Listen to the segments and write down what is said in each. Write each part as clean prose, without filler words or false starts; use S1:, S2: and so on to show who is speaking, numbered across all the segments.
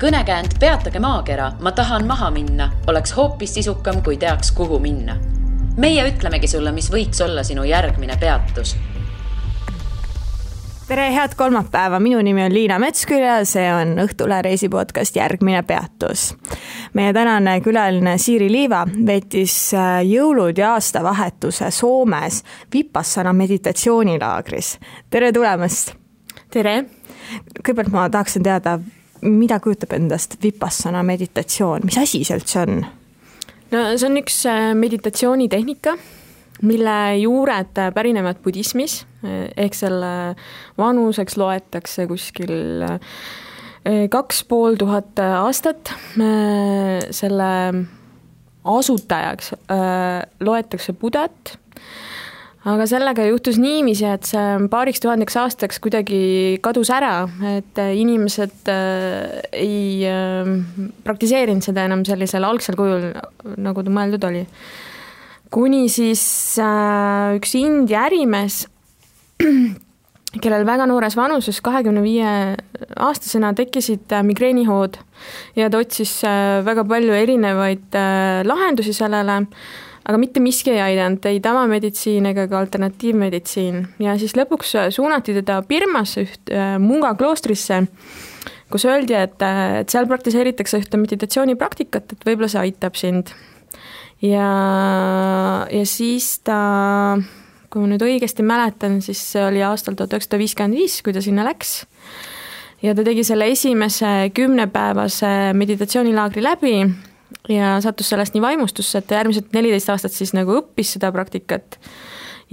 S1: Kõnekäänd Peatage maakera, ma tahan maha minna, oleks hoopis sisukam, kui teaks, kuhu minna. Meie ütlemegi sulle, mis võiks olla sinu järgmine peatus.
S2: Tere, head kolmapäeva. Minu nimi on Liina Metsküll ja see on Õhtule reisipodcast Järgmine peatus. Meie tänane külaline Siiri Liiva veetis jõulud ja aastavahetuse Soomes Vipassana meditatsioonilaagris. Tere tulemast!
S3: Tere!
S2: Kõigepealt ma tahaksin teada, mida kujutab endast Vipassana meditatsioon? Mis asi see üldse on?
S3: No, see on üks meditatsioonitehnika, mille juured pärinevad budismis, ehk selle vanuseks loetakse kuskil 2500 aastat. Selle asutajaks loetakse Budat, aga sellega juhtus niiviisi, et see paariks tuhandeks aastaks kuidagi kadus ära, et inimesed ei praktiseerinud seda enam sellisel algsel kujul, nagu ta mõeldud oli. Kuni siis üks India ärimees, kellel väga noores vanuses 25 aastasena tekkisid migreenihood ja ta otsis väga palju erinevaid lahendusi sellele, aga mitte miski ei aidanud, ei tavameditsiin ega ka alternatiivmeditsiin. Ja siis lõpuks suunati teda Birmasse Munga kloostrisse, kus öeldi, et seal praktiseeritakse ühte meditatsioonipraktikat, et võib-olla see aitab sind. Ja siis ta, kui ma nüüd õigesti mäletan, siis see oli aastal 1955, kui ta sinna läks. Ja ta tegi selle esimese 10-päevase meditatsioonilaagri läbi ja sattus sellest nii vaimustusse, et järgmised 14 aastat siis nagu õppis seda praktikat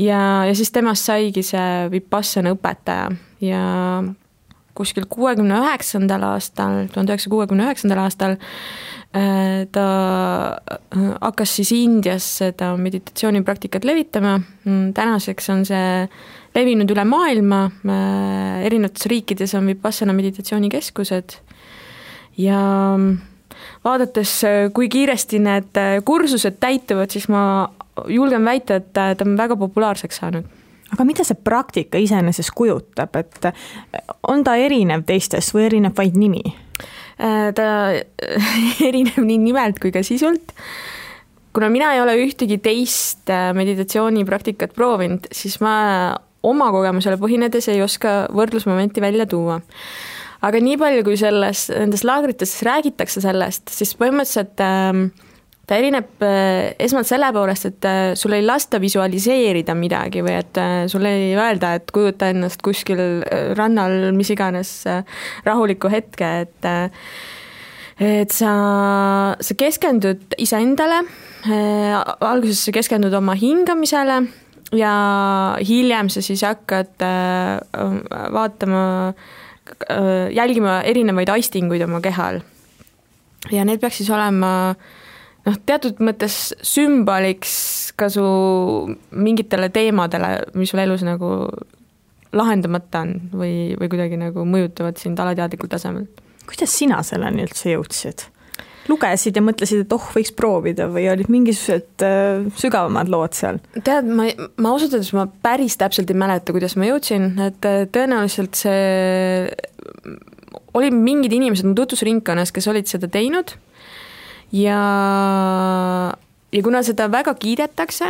S3: ja siis temast saigi see Vipassana õpetaja ja kuskil 1969. aastal ta hakkas siis Indias seda meditatsioonipraktikat levitama. Tänaseks on see levinud üle maailma, erinevates riikides on Vipassana meditatsioonikeskused ja vaadates, kui kiiresti need kursused täituvad, siis ma julgen väita, et ta on väga populaarseks saanud.
S2: Aga mida see praktika iseenesest kujutab, et on ta erinev teistest või erineb vaid nimi?
S3: Ta erineb nii nimelt kui ka sisult. Kuna mina ei ole ühtegi teist meditatsioonipraktikat proovinud, siis ma oma kogemusele põhinedes ei oska võrdlusmomenti välja tuua. Aga nii palju, kui nendes laagrites räägitakse sellest, siis põhimõtteliselt ta erineb esmalt selle poolest, et sul ei lasta visualiseerida midagi või et sul ei öelda, et kujuta ennast kuskil rannal mis iganes rahuliku hetke, et sa keskendud iseendale, alguses sa keskendud oma hingamisele ja hiljem sa siis hakkad jälgima erinevaid aistinguid oma kehal. Ja need peaks siis olema teatud mõttes sümboliks ka su mingitele teemadele, mis sul elus nagu lahendamata on või kuidagi nagu mõjutavad sind alateadlikul tasemel.
S2: Kuidas sina selleni üldse jõudsid? Lugesid ja mõtlesid, et võiks proovida või olid mingisugused sügavamad lood seal?
S3: Tead, ma ausalt, ma päris täpselt ei mäleta, kuidas ma jõudsin, et tõenäoliselt see oli mingid inimesed tutvusringkonnas, kes olid seda teinud ja kuna seda väga kiidetakse,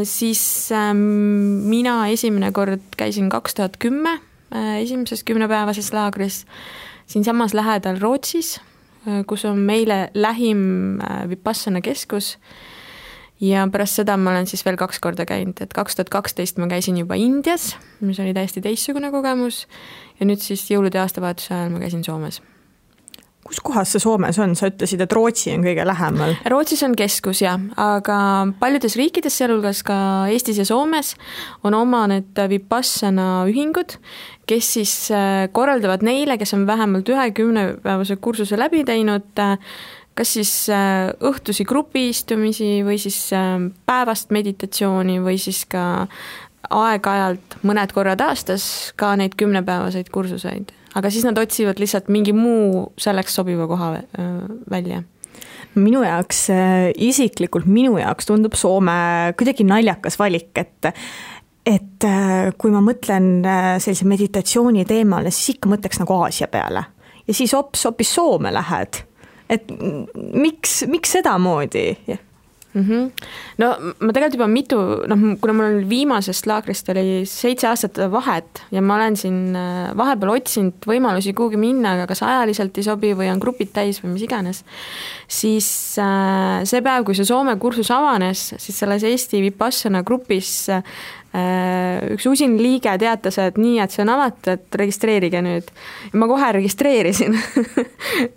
S3: siis mina esimene kord käisin 2010 esimeses 10-päevases laagris siin samas lähedal Rootsis, kus on meile lähim Vipassana keskus ja pärast seda ma olen siis veel 2 korda käinud, et 2012 ma käisin juba Indias, mis oli täiesti teistsugune kogemus ja nüüd siis jõulude aastavahetuse ajal ma käisin Soomes.
S2: Kus kohas see Soomes on? Sa ütlesid, et Rootsi on kõige lähemal.
S3: Rootsis on keskus, jah, aga paljudes riikides, sealhulgas ka Eestis ja Soomes, on oma need Vipassana ühingud, kes siis korraldavad neile, kes on vähemalt 10-päevase kursuse läbi teinud, kas siis õhtusi grupiistumisi või siis päevast meditatsiooni või siis ka aeg-ajalt mõned korrad aastas ka neid 10-päevaseid kursuseid. Aga siis nad otsivad lihtsalt mingi muu selleks sobiva koha välja.
S2: Minu jaoks, isiklikult minu jaoks tundub Soome kuidagi naljakas valik, et kui ma mõtlen sellise meditatsiooni teemale, siis ikka mõtleks nagu Aasia peale. ja siis hoopis Soome lähed. Et miks sedamoodi?
S3: No ma tegelikult juba kuna mul oli viimasest laagrist oli 7 aastat vahet ja ma olen siin vahepeal otsinud võimalusi kuhugi minna, aga kas ajaliselt ei sobi või on grupid täis või mis iganes, siis see päev, kui see Soome kursus avanes, siis selles Eesti Vipassana grupis üks usin liige teatas, et nii, et see on avatud, et registreerige nüüd. Ja ma kohe registreerisin,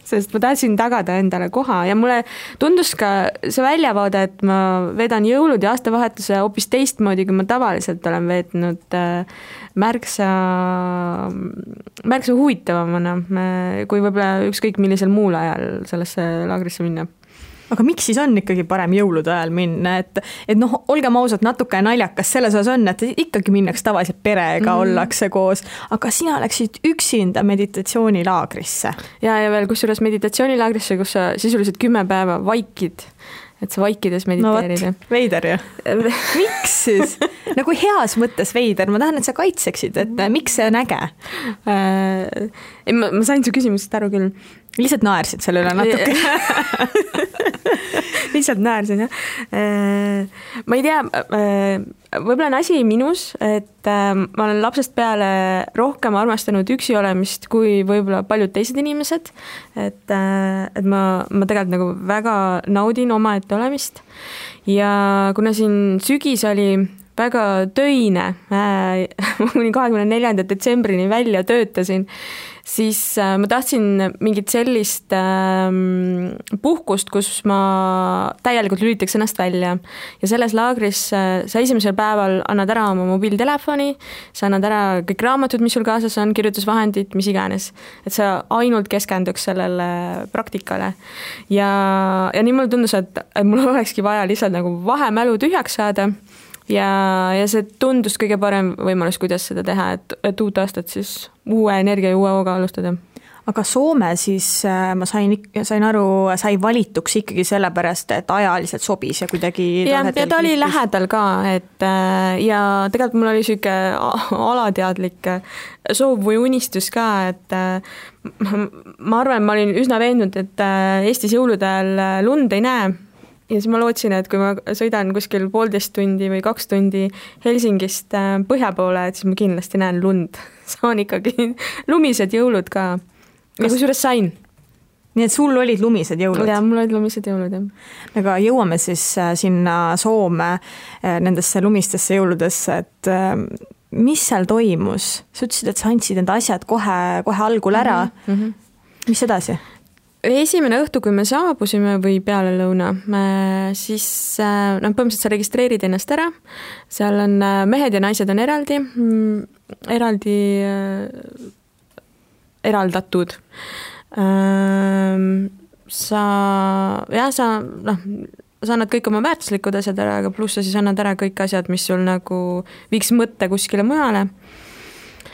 S3: sest ma tahtsin tagada endale koha ja mulle tundus ka see väljavaade, et ma vedan jõulud ja aastavahetuse hoopis teistmoodi, kui ma tavaliselt olen veetnud märksa huvitavamana, kui võib-olla ükskõik millisel muul ajal sellesse laagrisse minna.
S2: Aga miks siis on ikkagi parem jõulude ajal minna, et olgem ausad, natuke naljakas selles osas on, et ikkagi minnaks tavaliselt perega ollakse koos, aga sina läksid üksinda meditatsioonilaagrisse.
S3: Ja veel kusjuures meditatsioonilaagrisse, kus sa sisuliselt 10 päeva vaikid, et sa vaikides mediteerida.
S2: No veider ju. Miks siis? Nagu heas mõttes veider, ma tahan, et sa kaitseksid, et miks see on äge?
S3: Ma sain su küsimusest aru küll.
S2: Lihtsalt naersid selle üle natuke.
S3: Lihtsalt naersin, jah. Ma ei tea, võib-olla on asi minus, et ma olen lapsest peale rohkem armastanud üksi olemist kui võib-olla paljud teised inimesed, et ma tegelikult nagu väga naudin omaette olemist ja kuna siin sügis oli väga töine, kuni 24. detsembrini välja töötasin, siis ma tahtsin mingit sellist puhkust, kus ma täielikult lülitaks ennast välja. Ja selles laagris sa esimesel päeval annad ära oma mobiiltelefoni, sa annad ära kõik raamatud, mis sul kaasas on, kirjutusvahendid, mis iganes. Et sa ainult keskenduks sellele praktikale. Ja nii mulle tundus, et mul olekski vaja lihtsalt nagu vahemälu tühjaks saada. Ja see tundus kõige parem võimalus, kuidas seda teha, et uut aastat siis uue energia ja uue hooga alustada.
S2: Aga Soome siis ma sain aru, sai valituks ikkagi sellepärast, et ajaliselt sobis ja kuidagi...
S3: Ja ta oli lähedal ka, et ja tegelikult mul oli selline alateadlik soov või unistus ka, et ma arvan, ma olin üsna veendunud, et Eestis jõulude ajal lund ei näe. Ja siis ma lootsin, et kui ma sõidan kuskil 1,5 tundi või 2 tundi Helsingist põhja poole, et siis ma kindlasti näen lund. Saan ikkagi lumised jõulud ka. Ja kusjuures sain.
S2: Nii et sul olid lumised jõulud?
S3: Ja, mul olid lumised jõulud, jah.
S2: Aga jõuame siis sinna Soome nendesse lumistesse jõuludesse, et mis seal toimus? Sa ütlesid, et sa andsid enda asjad kohe algul ära. Mis edasi?
S3: Esimene õhtu, kui me saabusime või peale lõuna, siis põhimõtteliselt sa registreerid ennast ära, seal on mehed ja naised on eraldatud. Sa annad kõik oma väärtuslikud asjad ära, aga pluss sa siis annad ära kõik asjad, mis sul nagu viiks mõtte kuskile mujale.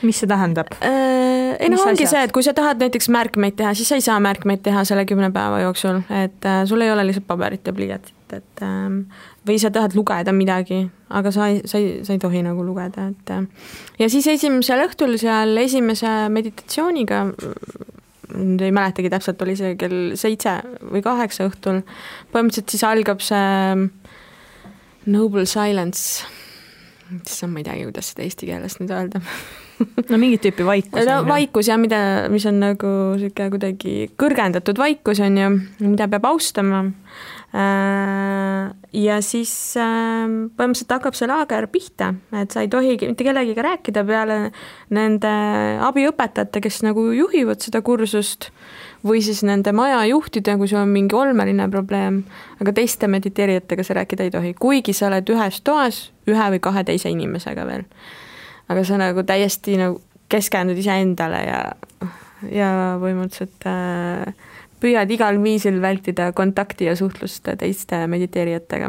S2: Mis see tähendab?
S3: Ongi see, et kui sa tahad näiteks märkmeid teha, siis sa ei saa märkmeid teha selle 10 päeva jooksul, et sul ei ole lihtsalt paberit ja pliiatit, et või sa tahad lugeda midagi, aga sa ei tohi nagu lugeda, et ja siis esimesel õhtul seal esimese meditatsiooniga, ei mäletagi täpselt, oli see kell 7 või 8 õhtul, põhimõtteliselt siis algab see Noble Silence, ma ei teagi, kuidas seda eesti keeles nüüd öelda.
S2: No mingit tüüpi vaikus.
S3: No, vaikus ja mis on nagu kuidagi kõrgendatud vaikus on ju, mida peab austama. Ja siis põhimõtteliselt hakkab see laager pihta, et sa ei tohi mitte kellegiga rääkida peale nende abiõpetajate, kes nagu juhivad seda kursust või siis nende maja juhtida, kui sul on mingi olmeline probleem, aga teiste mediteerijatega sa rääkida ei tohi, kuigi sa oled ühes toas 1 või 2 teise inimesega veel. Aga sa nagu täiesti nagu keskendud ise endale ja põhimõtteliselt püüad igal viisil vältida kontakti ja suhtlust teiste mediteerijatega.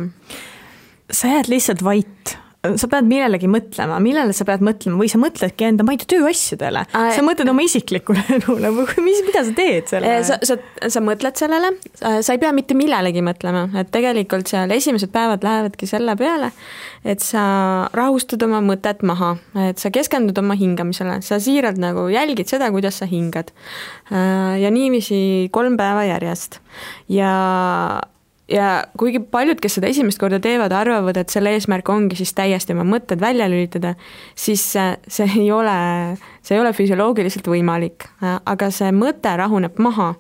S2: Sa jääd lihtsalt vait, sa pead millelegi mõtlema, millele sa pead mõtlema või sa mõtledki enda, ma ei tea, tööasjadele. Sa mõtled oma isiklikule elule või mida sa teed selle?
S3: Sa mõtled sellele, sa ei pea mitte millelegi mõtlema, et tegelikult seal esimesed päevad lähevadki selle peale, et sa rahustad oma mõtet maha, et sa keskendud oma hingamisele, sa siiralt nagu jälgid seda, kuidas sa hingad. Ja niiviisi 3 päeva järjest. Ja kuigi paljud, kes seda esimest korda teevad, arvavad, et selle eesmärk ongi siis täiesti oma mõtted välja lülitada, siis see ei ole füsioloogiliselt võimalik. Aga see mõte rahuneb maha.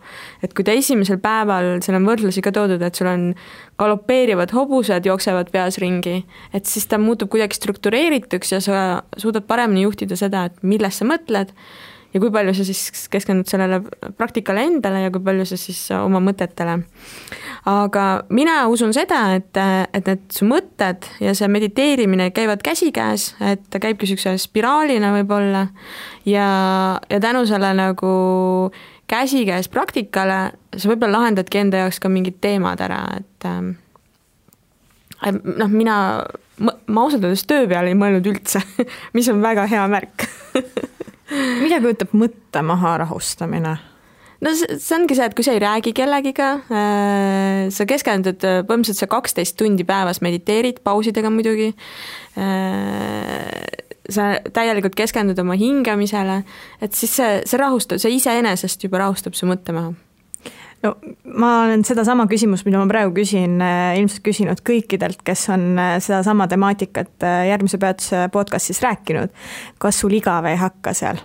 S3: Et kui ta esimesel päeval, seal on võrdlusi ka toodud, et sul on galopeerivad hobused, jooksevad peas ringi, et siis ta muutub kuidagi struktureerituks ja sa suudad paremini juhtida seda, et millest sa mõtled ja kui palju sa siis keskendud sellele praktikale endale ja kui palju sa siis oma mõtetele. Aga mina usun seda, et need su mõtted ja see mediteerimine käivad käsikäes, et ta käibki niisuguse spiraalina võib-olla ja tänu selle nagu käsikäes praktikale sa võib-olla lahendadki enda jaoks ka mingid teemad ära, et ma ausalt öeldes töö peale ei mõelnud üldse, mis on väga hea märk.
S2: Mida kujutab mõtte maha rahustamine?
S3: No see ongi see, et kui sa ei räägi kellegiga, sa keskendud, põhimõtteliselt sa 12 tundi päevas mediteerid, pausidega muidugi, sa täielikult keskendud oma hingamisele, et siis see rahustab, see iseenesest juba rahustab su mõtte maha.
S2: No, ma olen seda sama küsimus, mida ma praegu küsin, ilmselt küsinud kõikidelt, kes on seda sama temaatikat järgmise peatuse podcastis rääkinud. Kas sul igav ei hakka seal?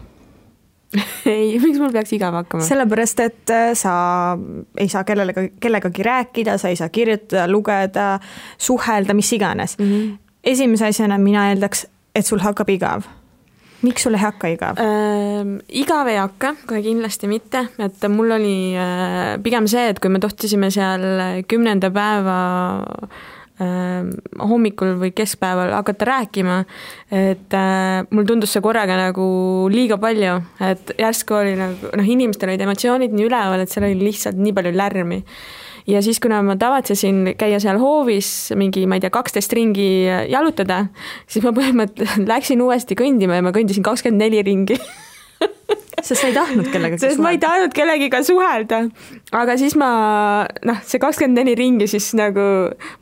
S3: Ei, miks mul peaks igav hakkama?
S2: Sellepärast, et sa ei saa kellegagi rääkida, sa ei saa kirjutada, lugeda, suhelda, mis iganes. Esimese asjana mina eeldaks, et sul hakkab igav. Miks sul ei hakka igav?
S3: Igav ei hakka, kohe kindlasti mitte, et mul oli pigem see, et kui me tohtisime seal 10. päeva hommikul või keskpäeval hakata rääkima, et mul tundus see korraga nagu liiga palju, et järsku oli nagu, inimestel olid emotsioonid nii üleval, et seal oli lihtsalt nii palju lärmi. Ja siis, kuna ma tavatsesin käia seal hoovis mingi, ma ei tea, 12 ringi jalutada, siis ma põhimõtteliselt läksin uuesti kõndima ja ma kõndisin 24 ringi.
S2: Sest sa ei tahtnud kellegagi
S3: suhelda? Sest ma ei tahtnud kellegiga suhelda. Aga siis see 24 ringi siis nagu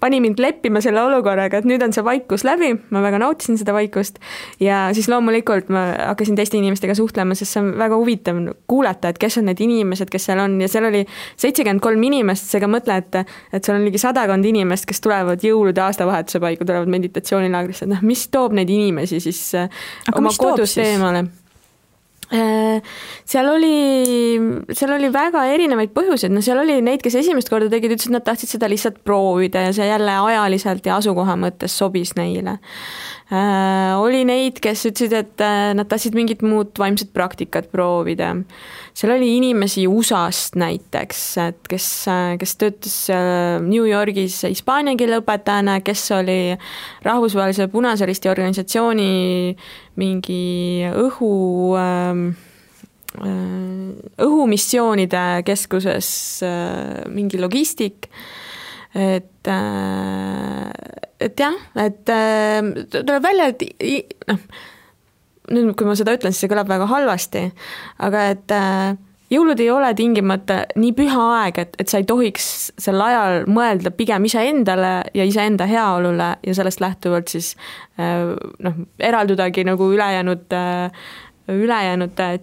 S3: pani mind leppima selle olukorraga, et nüüd on see vaikus läbi, ma väga nautisin seda vaikust ja siis loomulikult ma hakkasin teiste inimestega suhtlema, sest see on väga huvitav kuulata, et kes on need inimesed, kes seal on ja seal oli 73 inimest, seega mõtle, et seal on ligi 100 inimest, kes tulevad jõulude aastavahetuse paiku, tulevad meditatsioonilaagrisse, mis toob neid inimesi siis oma kodust eemale? Seal oli väga erinevaid põhjuseid, seal oli neid, kes esimest korda tegid, ütlesid, et nad tahtsid seda lihtsalt proovida ja see jälle ajaliselt ja asukoha mõttes sobis neile. Oli neid, kes ütlesid, et nad tahtsid mingit muud vaimset praktikat proovida. Seal oli inimesi USA-st näiteks, et kes töötas New Yorgis hispaania keele õpetajana, kes oli rahvusvahelise Punase Risti organisatsiooni mingi õhumissioonide keskuses mingi logistik, et jah, et tuleb välja, et nüüd, kui ma seda ütlen, siis see kõlab väga halvasti, aga et jõulud ei ole tingimata nii püha aeg, et sa ei tohiks sel ajal mõelda pigem iseendale ja iseenda heaolule ja sellest lähtuvalt siis eraldudagi nagu ülejäänud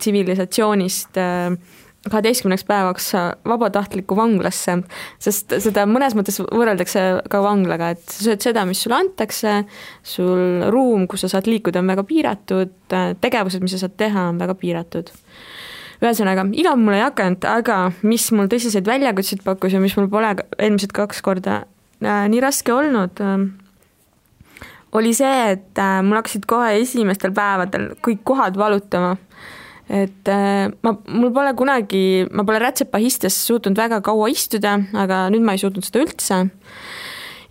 S3: tsivilisatsioonist 12 päevaks vabatahtliku vanglasse, sest seda mõnes mõttes võrreldakse ka vanglaga, et sa sööd seda, mis sulle antakse, sul ruum, kus sa saad liikuda, on väga piiratud, tegevused, mis sa saad teha, on väga piiratud. Ühesõnaga, igav mul ei hakanud, aga mis mul tõsiseid väljakutseid pakkus ja mis mul pole eelmised 2 korda nii raske olnud, oli see, et mul hakkasid kohe esimestel päevadel kõik kohad valutama. Et mul pole kunagi, ma pole rätsepahistes suutnud väga kaua istuda, aga nüüd ma ei suutnud seda üldse.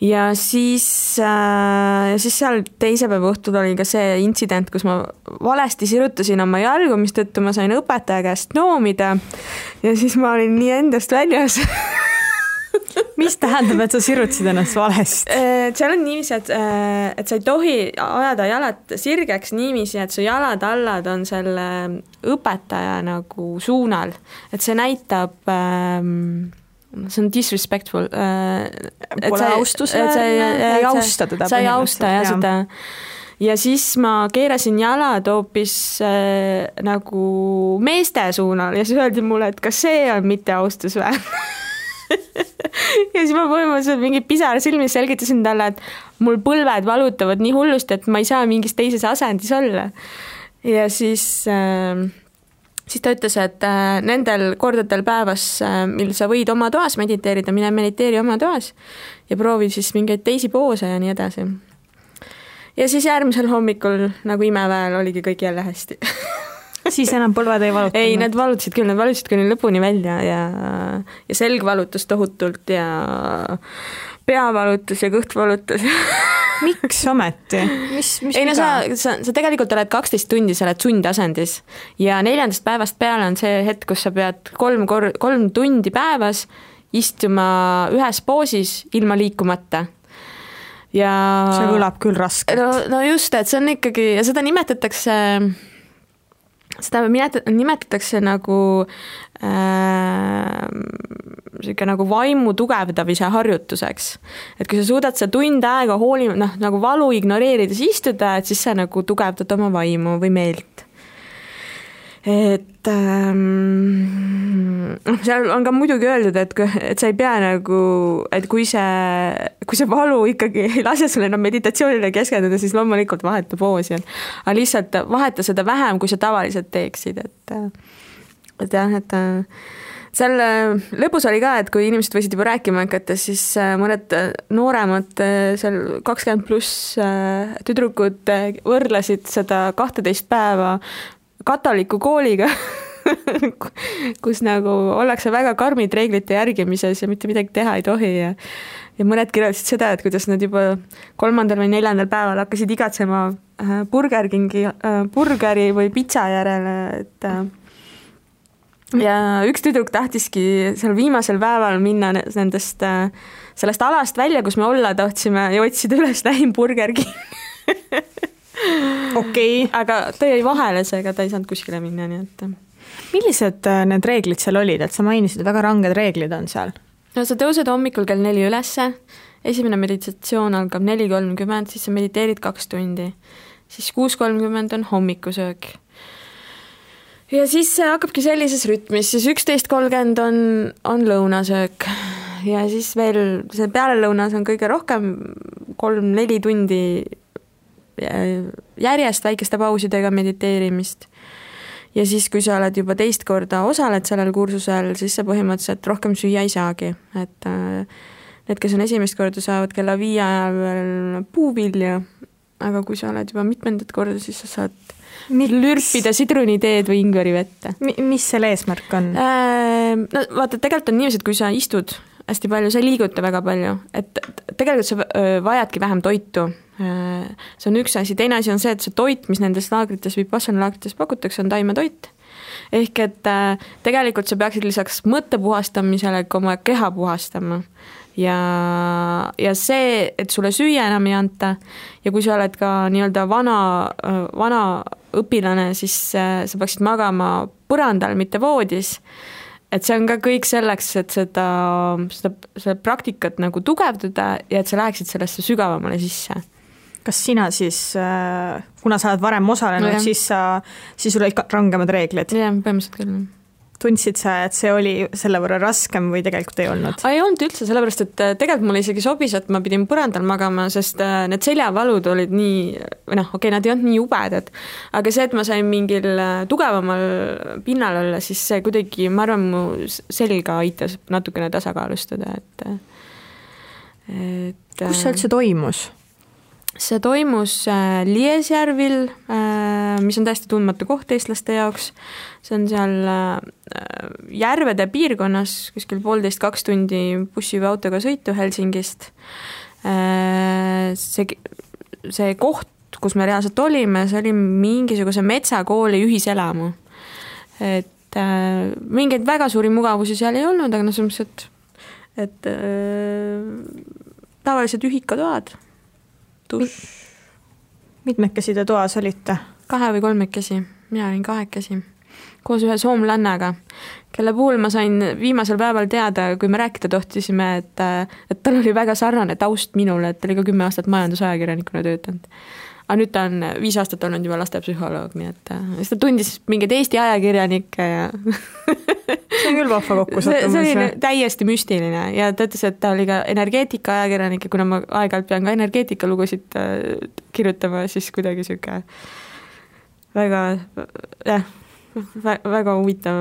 S3: Ja siis seal teise päeva õhtul oli ka see intsident, kus ma valesti sirutasin oma jalgu, mis tõttu ma sain õpetaja käest noomida ja siis ma olin nii endast väljas.
S2: mis tähendab, et sa sirutasid ennast valesti?
S3: Seal on niiviisi, et sa ei tohi ajada jalad sirgeks niiviisi, et su jalad allad on selle õpetaja nagu suunal. Et see näitab, see on disrespectful.
S2: Pole austusväärne, ei austa teda.
S3: Sa ei austa ja seda. Ja siis ma keerasin jalad hoopis nagu meeste suunal ja siis öeldi mulle, et kas see on mitte austusväärne. Ja siis ma põhimõtteliselt mingi pisar silmis selgitasin talle, et mul põlved valutavad nii hullust, et ma ei saa mingis teises asendis olla. Ja siis ta ütles, et nendel kordadel päevas, mil sa võid oma toas mediteerida, mine mediteeri oma toas ja proovi siis mingeid teisi poose ja nii edasi. Ja siis järgmisel hommikul nagu imeväel oligi kõik jälle hästi.
S2: Siis enam põlved ei valutanud?
S3: Ei, need valutasid kuni lõpuni välja ja selg valutas tohutult ja pea valutas ja kõht valutas.
S2: Miks ometi?
S3: Ei, no sa tegelikult oled 12 tundi, sa oled sundasendis ja 4. päevast peale on see hetk, kus sa pead 3 tundi päevas istuma ühes poosis ilma liikumata. Ja
S2: see kõlab küll raskelt.
S3: No just, et see on ikkagi, ja seda nimetatakse nagu nagu vaimu tugevdamise harjutuseks. Et kui sa suudad sa tund aega nagu valu ignoreerides istuda, et siis sa nagu tugevdad oma vaimu või meelt. Et seal on ka muidugi öeldud, et sa ei pea nagu, et kui see valu ikkagi ei lase sulle enam meditatsioonile keskenduda, siis loomulikult vaheta poosi. Aga lihtsalt vaheta seda vähem, kui sa tavaliselt teeksid. Et jah, et seal lõpus oli ka, et kui inimesed võisid juba rääkima hakata, siis mõned nooremad seal 20+ tüdrukud võrdlesid seda 12 päeva katoliku kooliga, kus nagu ollakse väga karmid reeglite järgimises ja mitte midagi teha ei tohi ja mõned kirjeldasid seda, et kuidas nad juba 3. või 4. päeval hakkasid igatsema burgeri või pitsa järele, et ja üks tüdruk tahtiski seal viimasel päeval minna sellest alast välja, kus me olla tahtsime ja otsida üles lähim Burger King.
S2: Okei.
S3: Aga ta jäi vahele, seega ta ei saanud kuskile minna, nii et.
S2: Millised need reeglid seal olid, et sa mainisid, väga ranged reeglid on seal?
S3: No sa tõused hommikul kell 4 ülesse, esimene meditatsioon algab 4:30, siis sa mediteerid 2 tundi, siis 6:30 on hommikusöök. Ja siis see hakkabki sellises rütmis, siis 11:30 on lõunasöök ja siis veel see pealelõunas on kõige rohkem 3-4 tundi järjest väikeste pausidega mediteerimist. Ja siis, kui sa oled juba teist korda osaled sellel kursusel, siis sa põhimõtteliselt rohkem süüa ei saagi. Et need, kes on esimest korda, saavad kella 5 ajal veel puuvilja, aga kui sa oled juba mitmendat korda, siis sa saad lürpida sidruniteed või ingveri vette.
S2: Mis selle eesmärk on?
S3: No vaata, tegelikult on niiviisi, et kui sa istud hästi palju, sa ei liiguta väga palju, et tegelikult sa vajadki vähem toitu. See on üks asi, teine asi on see, et see toit, mis nendes laagrites või Vipassana laagrites pakutakse, on taimetoit. Ehk et tegelikult sa peaksid lisaks mõtte puhastamisele ka oma keha puhastama. Ja see, et sulle süüa enam ei anta ja kui sa oled ka nii-öelda vana õpilane, siis sa peaksid magama põrandal, mitte voodis. Et see on ka kõik selleks, et seda praktikat nagu tugevdada ja et sa läheksid sellesse sügavamale sisse.
S2: Kas sina siis, kuna sa oled varem osalenud, siis sul olid rangemad reeglid?
S3: Jah, põhimõtteliselt küll.
S2: Tundsid sa, et see oli selle võrra raskem või tegelikult ei olnud?
S3: Ei olnud üldse, sellepärast, et tegelikult mulle isegi sobis, et ma pidin põrandal magama, sest need seljavalud olid nii, nad ei olnud nii jubedad, aga see, et ma sain mingil tugevamal pinnal olla, siis see kuidagi, ma arvan, mu selga aitas natukene tasakaalustada.
S2: Kus see üldse toimus?
S3: See toimus Liesjärvil, mis on täiesti tundmatu koht eestlaste jaoks. See on seal järvede piirkonnas, kuskil 1,5–2 tundi bussi või autoga sõitu Helsingist. See koht, kus me reaalselt olime, see oli mingisuguse metsakooli ühiselamu. Et mingeid väga suuri mugavusi seal ei olnud, aga selles mõttes, et tavaliselt ühikatoad,
S2: mitmekesi te toas olite?
S3: 2 või 3, mina olin 2 koos ühe soomlannaga, kelle puhul ma sain viimasel päeval teada, kui me rääkida tohtisime, et tal oli väga sarnane taust minule, et ta oli ka 10 aastat majandusajakirjanikuna töötanud. Aga nüüd ta on 5 aastat olnud juba lastepsühholoog, nii et siis ta tundis mingeid Eesti ajakirjanikke ja
S2: see on küll vahva kokkusattumus.
S3: See oli täiesti müstiline ja ta ütles, et ta oli ka energeetika ajakirjanik ja kuna ma aeg-ajalt pean ka energeetika lugusid kirjutama, siis kuidagi siuke väga huvitav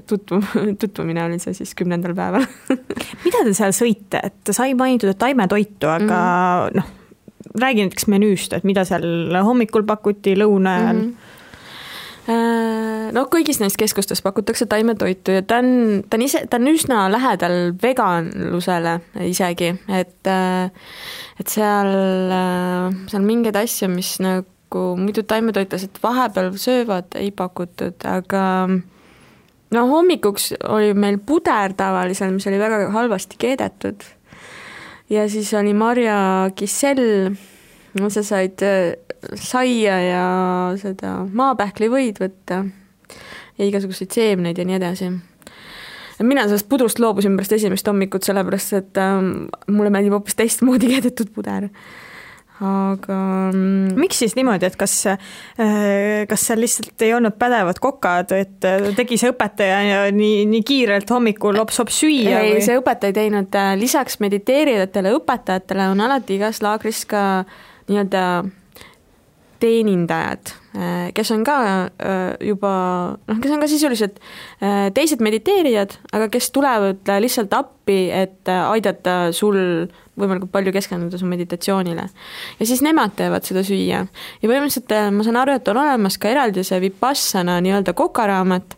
S3: tutvumine oli see siis 10. päeval.
S2: Mida te seal sõite? Et sai mainitud, et taimetoitu, aga räägi näiteks menüüst, et mida seal hommikul pakuti, lõuna ajal?
S3: No kõigis neist keskustes pakutakse taimetoitu ja ta on üsna lähedal veganlusele isegi, et seal mingeid asju, mis nagu muidu taimetoitlased vahepeal söövad, ei pakutud, aga no hommikuks oli meil puder tavalisel, mis oli väga halvasti keedetud ja siis oli marja kissell, sa said saia ja seda maapähklivõid võtta ja igasuguseid seemneid ja nii edasi. Mina sellest pudrust loobusin pärast esimest hommikut, sellepärast et mulle meeldib hoopis teistmoodi keedetud puder. Aga
S2: miks siis niimoodi, et kas seal lihtsalt ei olnud pädevad kokad, et tegi see õpetaja ja nii kiirelt hommikul lops-hops süüa?
S3: Ei, see õpetaja ei teinud, lisaks mediteerijatele õpetajatele on alati igas laagris ka nii-öelda teenindajad, kes on ka juba, kes on ka sisuliselt teised mediteerijad, aga kes tulevad lihtsalt appi, et aidata sul võimalikult palju keskenduda su meditatsioonile. Ja siis nemad teevad seda süüa. Ja põhimõtteliselt ma saan aru, et on olemas ka eraldi see Vipassana nii-öelda kokaraamat,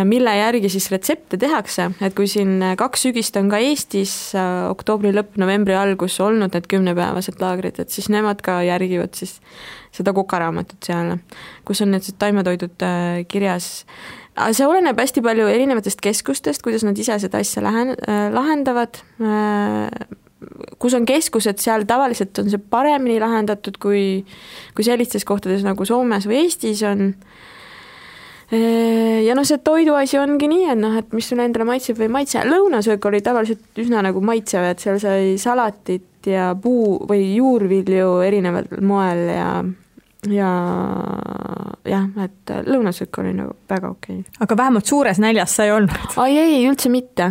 S3: mille järgi siis retsepte tehakse, et kui siin 2 sügist on ka Eestis oktoobri lõpp, novembri algus olnud need 10-päevased laagrid, et siis nemad ka järgivad siis seda kokaraamatut seal, kus on need taimetoidud kirjas. See oleneb hästi palju erinevatest keskustest, kuidas nad ise seda asja lahendavad. Kus on keskused, seal tavaliselt on see paremini lahendatud kui sellistes kohtades nagu Soomes või Eestis on. Ja see toiduasi ongi nii, et mis sulle endale maitseb või maitse. Lõunasöök oli tavaliselt üsna nagu maitsev, et seal sai salatit ja puu või juurvilju erineval moel ja et lõunasöök oli nagu väga okei.
S2: Aga vähemalt suures näljas sai olnud?
S3: Ei, üldse mitte.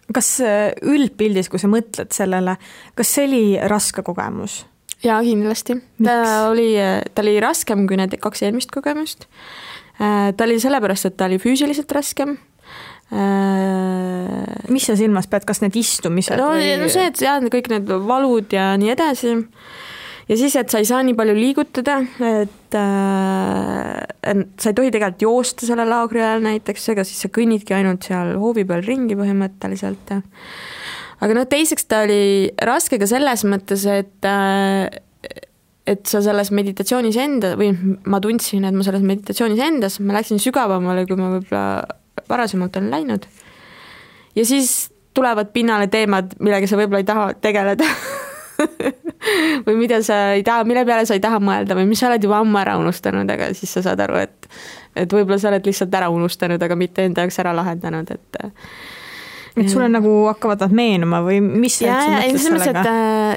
S2: Kas üldpildis, kui sa mõtled sellele, kas see oli raske kogemus?
S3: Jaa, kindlasti. Ta oli raskem kui need 2 eelmist kogemust. Ta oli sellepärast, et ta oli füüsiliselt raskem.
S2: Mis sa silmas pead, kas need istumised?
S3: No see, et kõik need valud ja nii edasi. Ja siis, et sa ei saa nii palju liigutada, et sa ei tohi tegelikult joosta selle laagri ajal näiteks, ega siis sa kõnnidki ainult seal hoovi peal ringi põhimõtteliselt. Aga teiseks ta oli raske ka selles mõttes, et sa selles meditatsioonis enda, või ma tundsin, et ma selles meditatsioonis endas, ma läksin sügavamale, kui ma võib-olla varasemalt olen läinud. Ja siis tulevad pinnale teemad, millega sa võib-olla ei taha tegeleda. või mida sa ei taha, mille peale sa ei taha mõelda või mis sa oled juba ammu ära unustanud, aga siis sa saad aru, et võib-olla sa oled lihtsalt ära unustanud, aga mitte enda jaoks ära lahendanud,
S2: et sulle nagu hakkavad nad meenuma või mis sa mõtles sellega?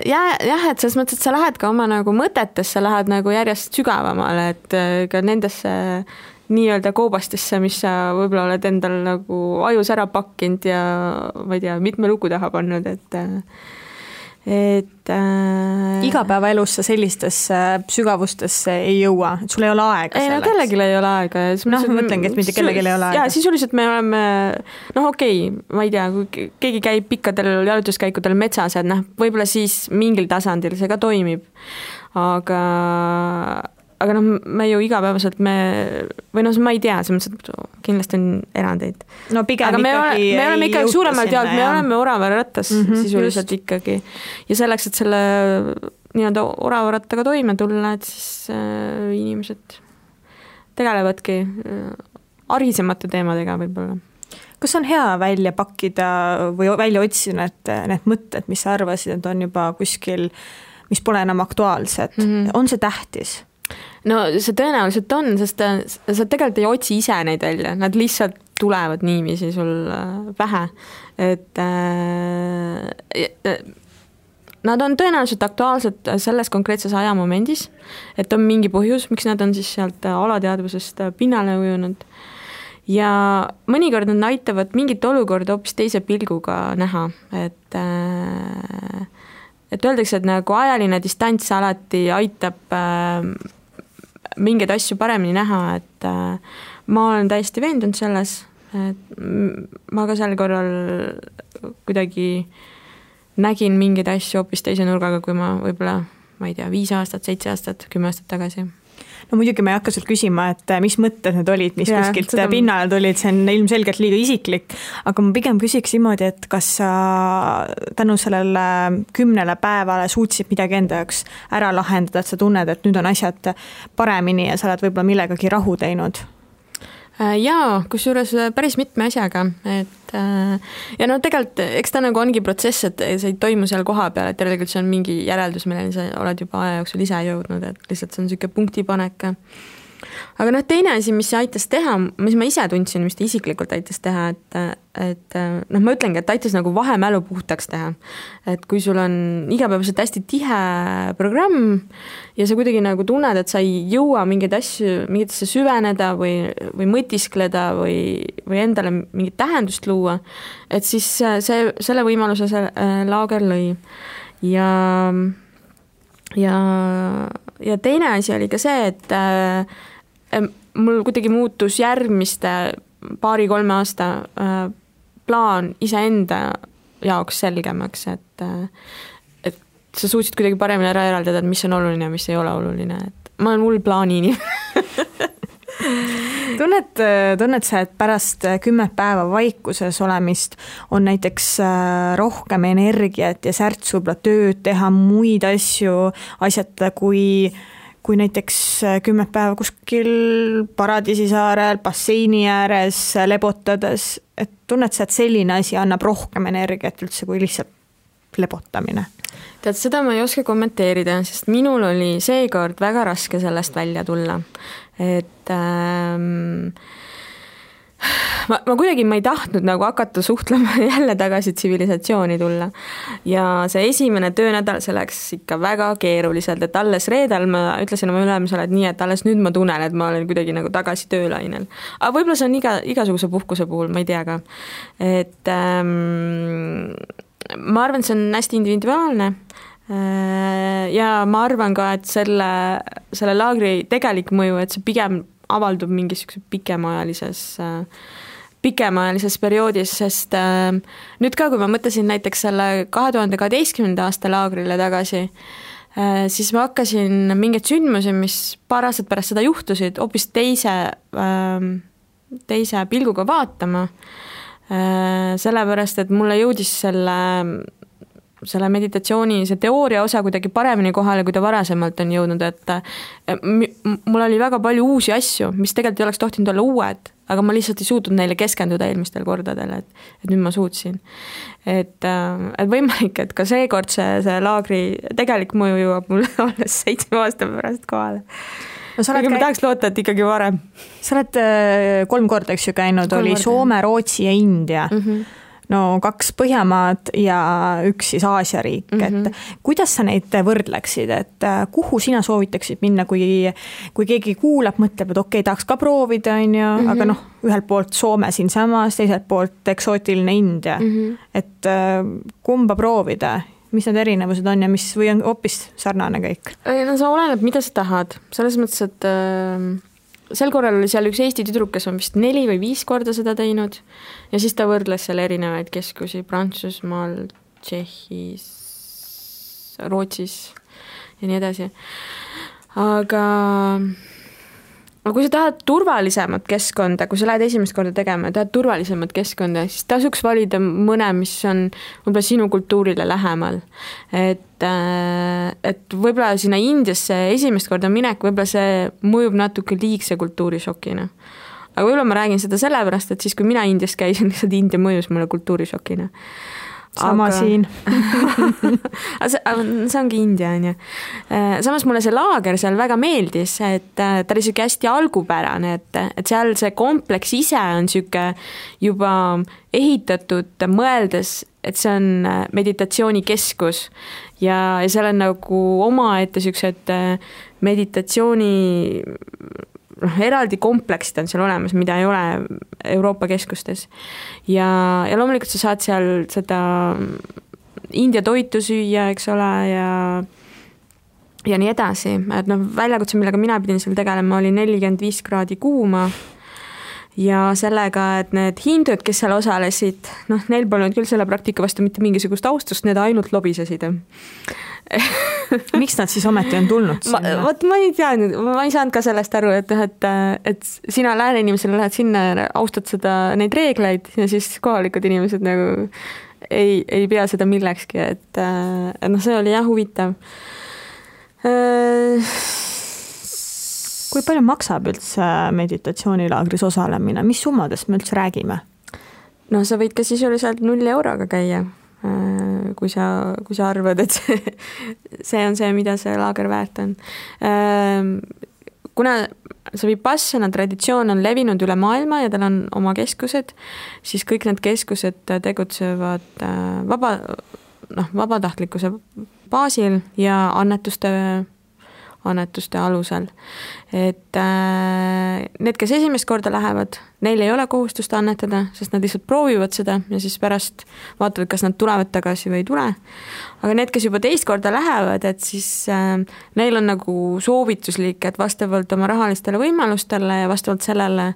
S3: Et selles mõttes, et sa lähed ka oma nagu mõtetesse, lähed nagu järjest sügavamale, et ka nendesse nii-öelda koobastesse, mis sa võib-olla oled endal nagu ajus ära pakkinud ja ma ei tea, mitme lugu taha pannud, et
S2: igapäevaelus sa sellistesse sügavustesse ei jõua, et sul ei ole aega selleks.
S3: Ei, kellelgi ei ole aega.
S2: Mõtlengi, et mitte kellelgi ei ole aega.
S3: Ja sisuliselt me oleme, ma ei tea, kui keegi käib pikkadel jalutuskäikudel metsas, et võib-olla siis mingil tasandil see ka toimib. Aga me ju igapäevaselt ma ei tea, kindlasti on erandeid.
S2: No pigem
S3: aga me oleme ikkagi suuremalt jaolt, me oleme oravarattas sisuliselt
S2: just.
S3: Ikkagi. Ja selleks, et selle nii-öelda oravarattaga toime tulla, et siis inimesed tegelevadki arisemate teemadega võib-olla.
S2: kas on hea välja pakkida või välja otsida need mõtted, mis sa arvasid, et on juba kuskil, mis pole enam aktuaalsed, on see tähtis?
S3: No see tõenäoliselt on, sest sa tegelikult ei otsi ise neid välja, nad lihtsalt tulevad niiviisi sul pähe, et nad on tõenäoliselt aktuaalsed selles konkreetses ajamomendis, et on mingi põhjus, miks nad on siis sealt alateadvusest pinnale ujunud. Ja mõnikord nad aitavad mingit olukorda hoopis teise pilguga näha, et öeldakse, et nagu ajaline distants alati aitab mingeid asju paremini näha, et ma olen täiesti veendunud selles, et ma ka sel korral kuidagi nägin mingeid asju hoopis teise nurgaga, kui ma võib-olla, ma ei tea, 5 aastat, 7 aastat, 10 aastat tagasi.
S2: No muidugi ma ei hakka sult küsima, et mis mõtted need olid, mis kuskilt pinnale tulid, see on ilmselgelt liiga isiklik, aga ma pigem küsiks niimoodi, et kas sa tänu sellele 10 päevale suutsid midagi enda jaoks ära lahendada, et sa tunned, et nüüd on asjad paremini ja sa oled võib-olla millegagi rahu teinud?
S3: Jaa, kusjuures päris mitme asjaga, et ja no tegelikult, eks ta nagu ongi protsess, et see ei toimu seal koha peal, et tegelikult see on mingi järeldus, milleni sa oled juba aja jooksul ise jõudnud, et lihtsalt see on niisugune punktipanek. Aga noh, teine asi, mis aitas teha, mis ma ise tundsin, mis ta isiklikult aitas teha, et noh, ma ütlengi, et aitas nagu vahemälu puhtaks teha. Et kui sul on igapäevaselt hästi tihe programm ja sa kuidagi nagu tunned, et sa ei jõua mingitesse süveneda või mõtiskleda või endale mingit tähendust luua, et siis selle võimaluse see laager lõi. Ja teine asi oli ka see, et mul kuidagi muutus järgmiste 2-3 aasta plaan iseenda jaoks selgemaks, et sa suutsid kuidagi paremini ära eraldada, et mis on oluline ja mis ei ole oluline, et ma olen hull plaanini.
S2: Tunned sa, et pärast 10 päeva vaikuses olemist on näiteks rohkem energiat ja särts võib-olla tööd teha, muid asju asjata, kui näiteks 10 päeva kuskil Paradiisisaarel, basseini ääres lebotades, et tunned sa, et selline asi annab rohkem energiat üldse kui lihtsalt lebotamine?
S3: Tead, seda ma ei oska kommenteerida, sest minul oli seekord väga raske sellest välja tulla. Et ma kuidagi ma ei tahtnud nagu hakata suhtlema jälle tagasi tsivilisatsiooni tulla. Ja see esimene töönädal see läks ikka väga keeruliselt, et alles reedel ma ütlesin oma ülemusele, et nii, et alles nüüd ma tunnen, et ma olen kuidagi nagu tagasi töölainel. Aga võib-olla see on igasuguse puhkuse puhul, ma ei tea ka. Et ma arvan, see on hästi individuaalne ja ma arvan ka, et selle laagri tegelik mõju, et see pigem avaldub mingisuguse pikemaajalises perioodis, sest nüüd ka, kui ma mõtlesin näiteks selle 2012. aasta laagrile tagasi, siis ma hakkasin mingeid sündmusi, mis paar aastat pärast seda juhtusid, hoopis teise pilguga vaatama, sellepärast, et mulle jõudis selle meditatsiooni, see teooria osa kuidagi paremini kohale, kui ta varasemalt on jõudnud, et mul oli väga palju uusi asju, mis tegelikult ei oleks tohtinud olla uued, aga ma lihtsalt ei suutnud neile keskenduda eelmistel kordadel, et nüüd ma suutsin. Et võimalik, et ka seekord see laagri tegelik mõju jõuab mulle alles 7 aasta pärast kohale. No, ma tahaks loota, et ikkagi varem.
S2: Sa oled 3 korda, eks ju, käinud, oli Soome, Rootsi ja India. No 2 Põhjamaad ja 1 siis Aasia riik, et kuidas sa neid võrdleksid, et kuhu sina soovitaksid minna, kui keegi kuulab, mõtleb, et okei, tahaks ka proovida, aga noh, ühelt poolt Soome siin samas, teiselt poolt eksootiline India, et kumba proovida, mis need erinevused on ja mis või on hoopis sarnane kõik?
S3: No sa oleneb, mida sa tahad, selles mõttes, et sel korral oli seal üks Eesti tüdruk, kes on vist 4 või 5 korda seda teinud ja siis ta võrdles seal erinevaid keskusi Prantsusmaal, Tšehhis, Rootsis ja nii edasi. Aga kui sa tahad turvalisemat keskkonda, kui sa lähed esimest korda tegema ja tahad turvalisemat keskkonda, siis tasuks valida mõne, mis on võib-olla sinu kultuurile lähemal. Et võib-olla sinna Indiasse esimest korda minek, võib-olla see mõjub natuke liigse kultuurišokina. aga võib-olla ma räägin seda sellepärast, et siis, kui mina Indias käisin, lihtsalt India mõjus mulle kultuurishokina.
S2: Sama siin.
S3: see ongi India, on ju. Samas mulle see laager seal väga meeldis, et ta oli siuke hästi algupärane, et seal see kompleks ise on siuke juba ehitatud, mõeldes, et see on meditatsioonikeskus ja seal on nagu omaette siuksed meditatsiooni eraldi kompleksid on seal olemas, mida ei ole Euroopa keskustes. Ja loomulikult sa saad seal seda India toitu süüa, eks ole, ja nii edasi. Et väljakutse, millega mina pidin seal tegelema, oli 45 kraadi kuuma ja sellega, et need hindud, kes seal osalesid, neil polnud küll selle praktika vastu mitte mingisugust austust, need ainult lobisesid.
S2: Miks nad siis ometi on tulnud sinna?
S3: Ma ei teadnud, ma ei saanud ka sellest aru, et sina lääne inimesele lähed sinna ja austad neid reegleid ja siis kohalikud inimesed nagu ei pea seda millekski, et see oli jah huvitav.
S2: Kui palju maksab üldse meditatsioonilaagris osalemine? Mis summadest me üldse räägime?
S3: Sa võid ka sisuliselt 0 euroga käia, kui sa arvad, et see on see, mida see laager väärt on. Kuna see Vipassana traditsioon on levinud üle maailma ja tal on oma keskused, siis kõik need keskused tegutsevad vabatahtlikkuse baasil ja annetuste alusel. Et need, kes esimest korda lähevad, neil ei ole kohustust annetada, sest nad lihtsalt proovivad seda ja siis pärast vaatavad, kas nad tulevad tagasi või ei tule. Aga need, kes juba teist korda lähevad, et siis neil on nagu soovituslik, et vastavalt oma rahalistele võimalustele ja vastavalt sellele,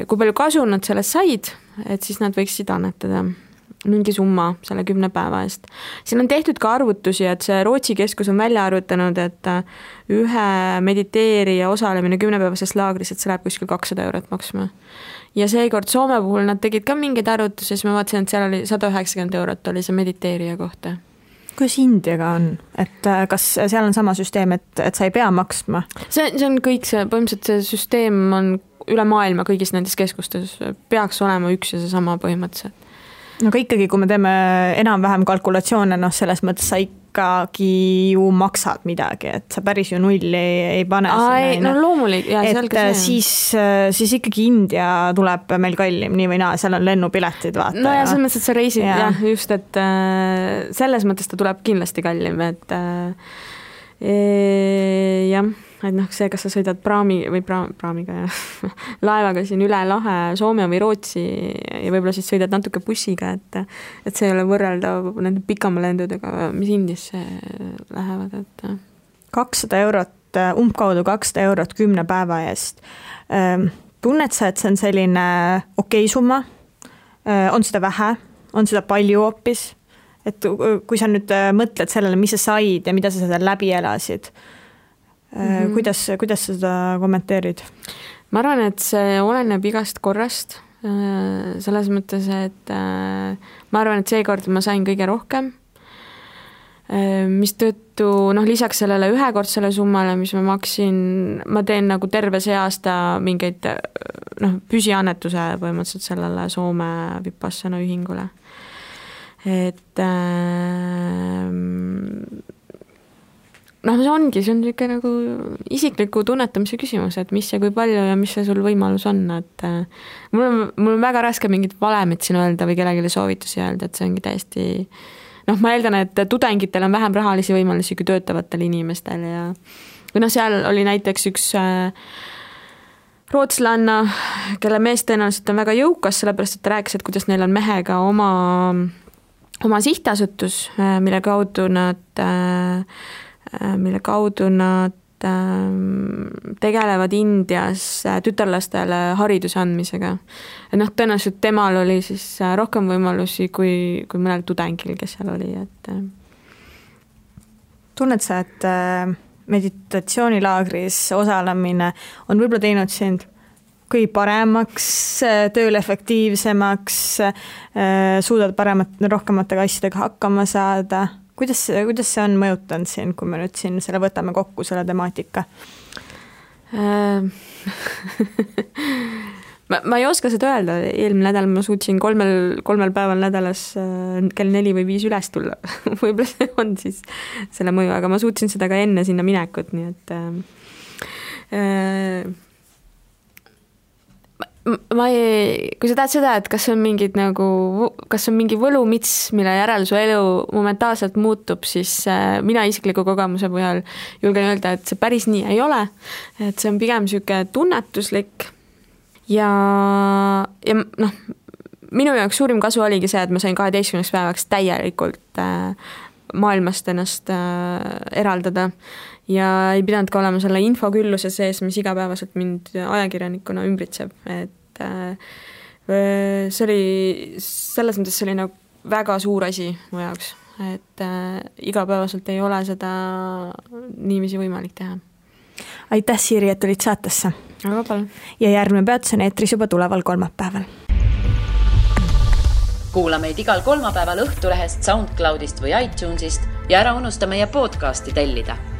S3: kui palju kasu nad sellest said, et siis nad võiksid annetada mingi summa selle 10 päeva eest. Siin on tehtud ka arvutusi, et see Rootsi keskus on välja arvutanud, et ühe mediteerija osalemine 10-päevases laagris, et see läheb kuskil 200 eurot maksma. Ja seekord Soome puhul nad tegid ka mingeid arvutusi, siis ma vaatasin, et seal oli 190 eurot oli see mediteerija kohta.
S2: Kuidas Indiaga on? Et kas seal on sama süsteem, et sa ei pea maksma?
S3: See on kõik see, põhimõtteliselt see süsteem on üle maailma kõigis nendes keskustes, peaks olema üks ja see sama põhimõtteliselt.
S2: Aga ikkagi, kui me teeme enam-vähem kalkulatsioone, selles mõttes sa ikkagi ju maksad midagi, et sa päris ju nulli ei pane.
S3: Loomulik. Ja,
S2: et siis ikkagi India tuleb meil kallim, nii või naa, seal on lennupiletid, vaata.
S3: No ja selles mõttes, et sa reisid, jah, just, et selles mõttes ta tuleb kindlasti kallim, et jah, et see, kas sa sõidad praamiga ja laevaga siin üle lahe Soome või Rootsi ja võib-olla siis sõidad natuke bussiga, et see ei ole võrreldav nende pikama lendudega, mis Indiasse lähevad.
S2: 200 eurot, umbkaudu 200 eurot 10 päeva eest. Tunned sa, et see on selline okei summa? On seda vähe? On seda palju hoopis? Et kui sa nüüd mõtled sellele, mis sa said ja mida sa seda läbi elasid, kuidas sa seda kommenteerid?
S3: Ma arvan, et see oleneb igast korrast, selles mõttes, et ma arvan, et seekord ma sain kõige rohkem, mis tõttu lisaks sellele ühekordsele summale, mis ma maksin, ma teen nagu terve see aasta mingeid püsiannetuse põhimõtteliselt sellele Soome Vipassana ühingule. Et see ongi, see on niisugune nagu isikliku tunnetamise küsimus, et mis ja kui palju ja mis see sul võimalus on, et mul on väga raske mingit valemit siin öelda või kellelegi soovitusi öelda, et see ongi täiesti, ma eeldan, et tudengitel on vähem rahalisi võimalusi kui töötavatel inimestel ja või seal oli näiteks üks rootslanna, kelle mees tõenäoliselt on väga jõukas, sellepärast, et ta rääkis, et kuidas neil on mehega oma sihtasutus, mille kaudu nad tegelevad Indias tütarlastele hariduse andmisega. Tõenäoliselt temal oli siis rohkem võimalusi kui mõnel tudengil, kes seal oli.
S2: Tunned sa, et meditatsioonilaagris osalemine on võib-olla teinud sind kõige paremaks, tööl efektiivsemaks, suudad rohkematega asjadega hakkama saada? Kuidas see on mõjutanud siin, kui me nüüd siin selle võtame kokku, selle temaatika?
S3: ma ei oska seda öelda, eelmine nädal ma suutsin kolmel päeval nädalas kell 4 või 5 üles tulla. Võib-olla see on siis selle mõju, aga ma suutsin seda ka enne sinna minekut, nii et kui sa tahad seda, et kas on mingi võlumits, mille järel su elu momentaalselt muutub, siis mina isikliku kogemuse põhjal julgen öelda, et see päris nii ei ole, et see on pigem siuke tunnetuslik ja noh, minu jaoks suurim kasu oligi see, et ma sain 12 päevaks täielikult maailmast ennast eraldada ja ei pidanud ka olema selle infokülluse sees, mis igapäevaselt mind ajakirjanikuna ümbritseb, et see oli selles mõttes selline väga suur asi mu jaoks, et igapäevaselt ei ole seda niiviisi võimalik teha.
S2: Aitäh, Siiri, et tulid saatesse.
S3: Aga palun.
S2: Ja järgmine peatus on eetris juba tuleval kolmapäeval.
S1: Kuula meid igal kolmapäeval Õhtulehest, SoundCloudist või iTunesist ja ära unusta meie podcasti tellida.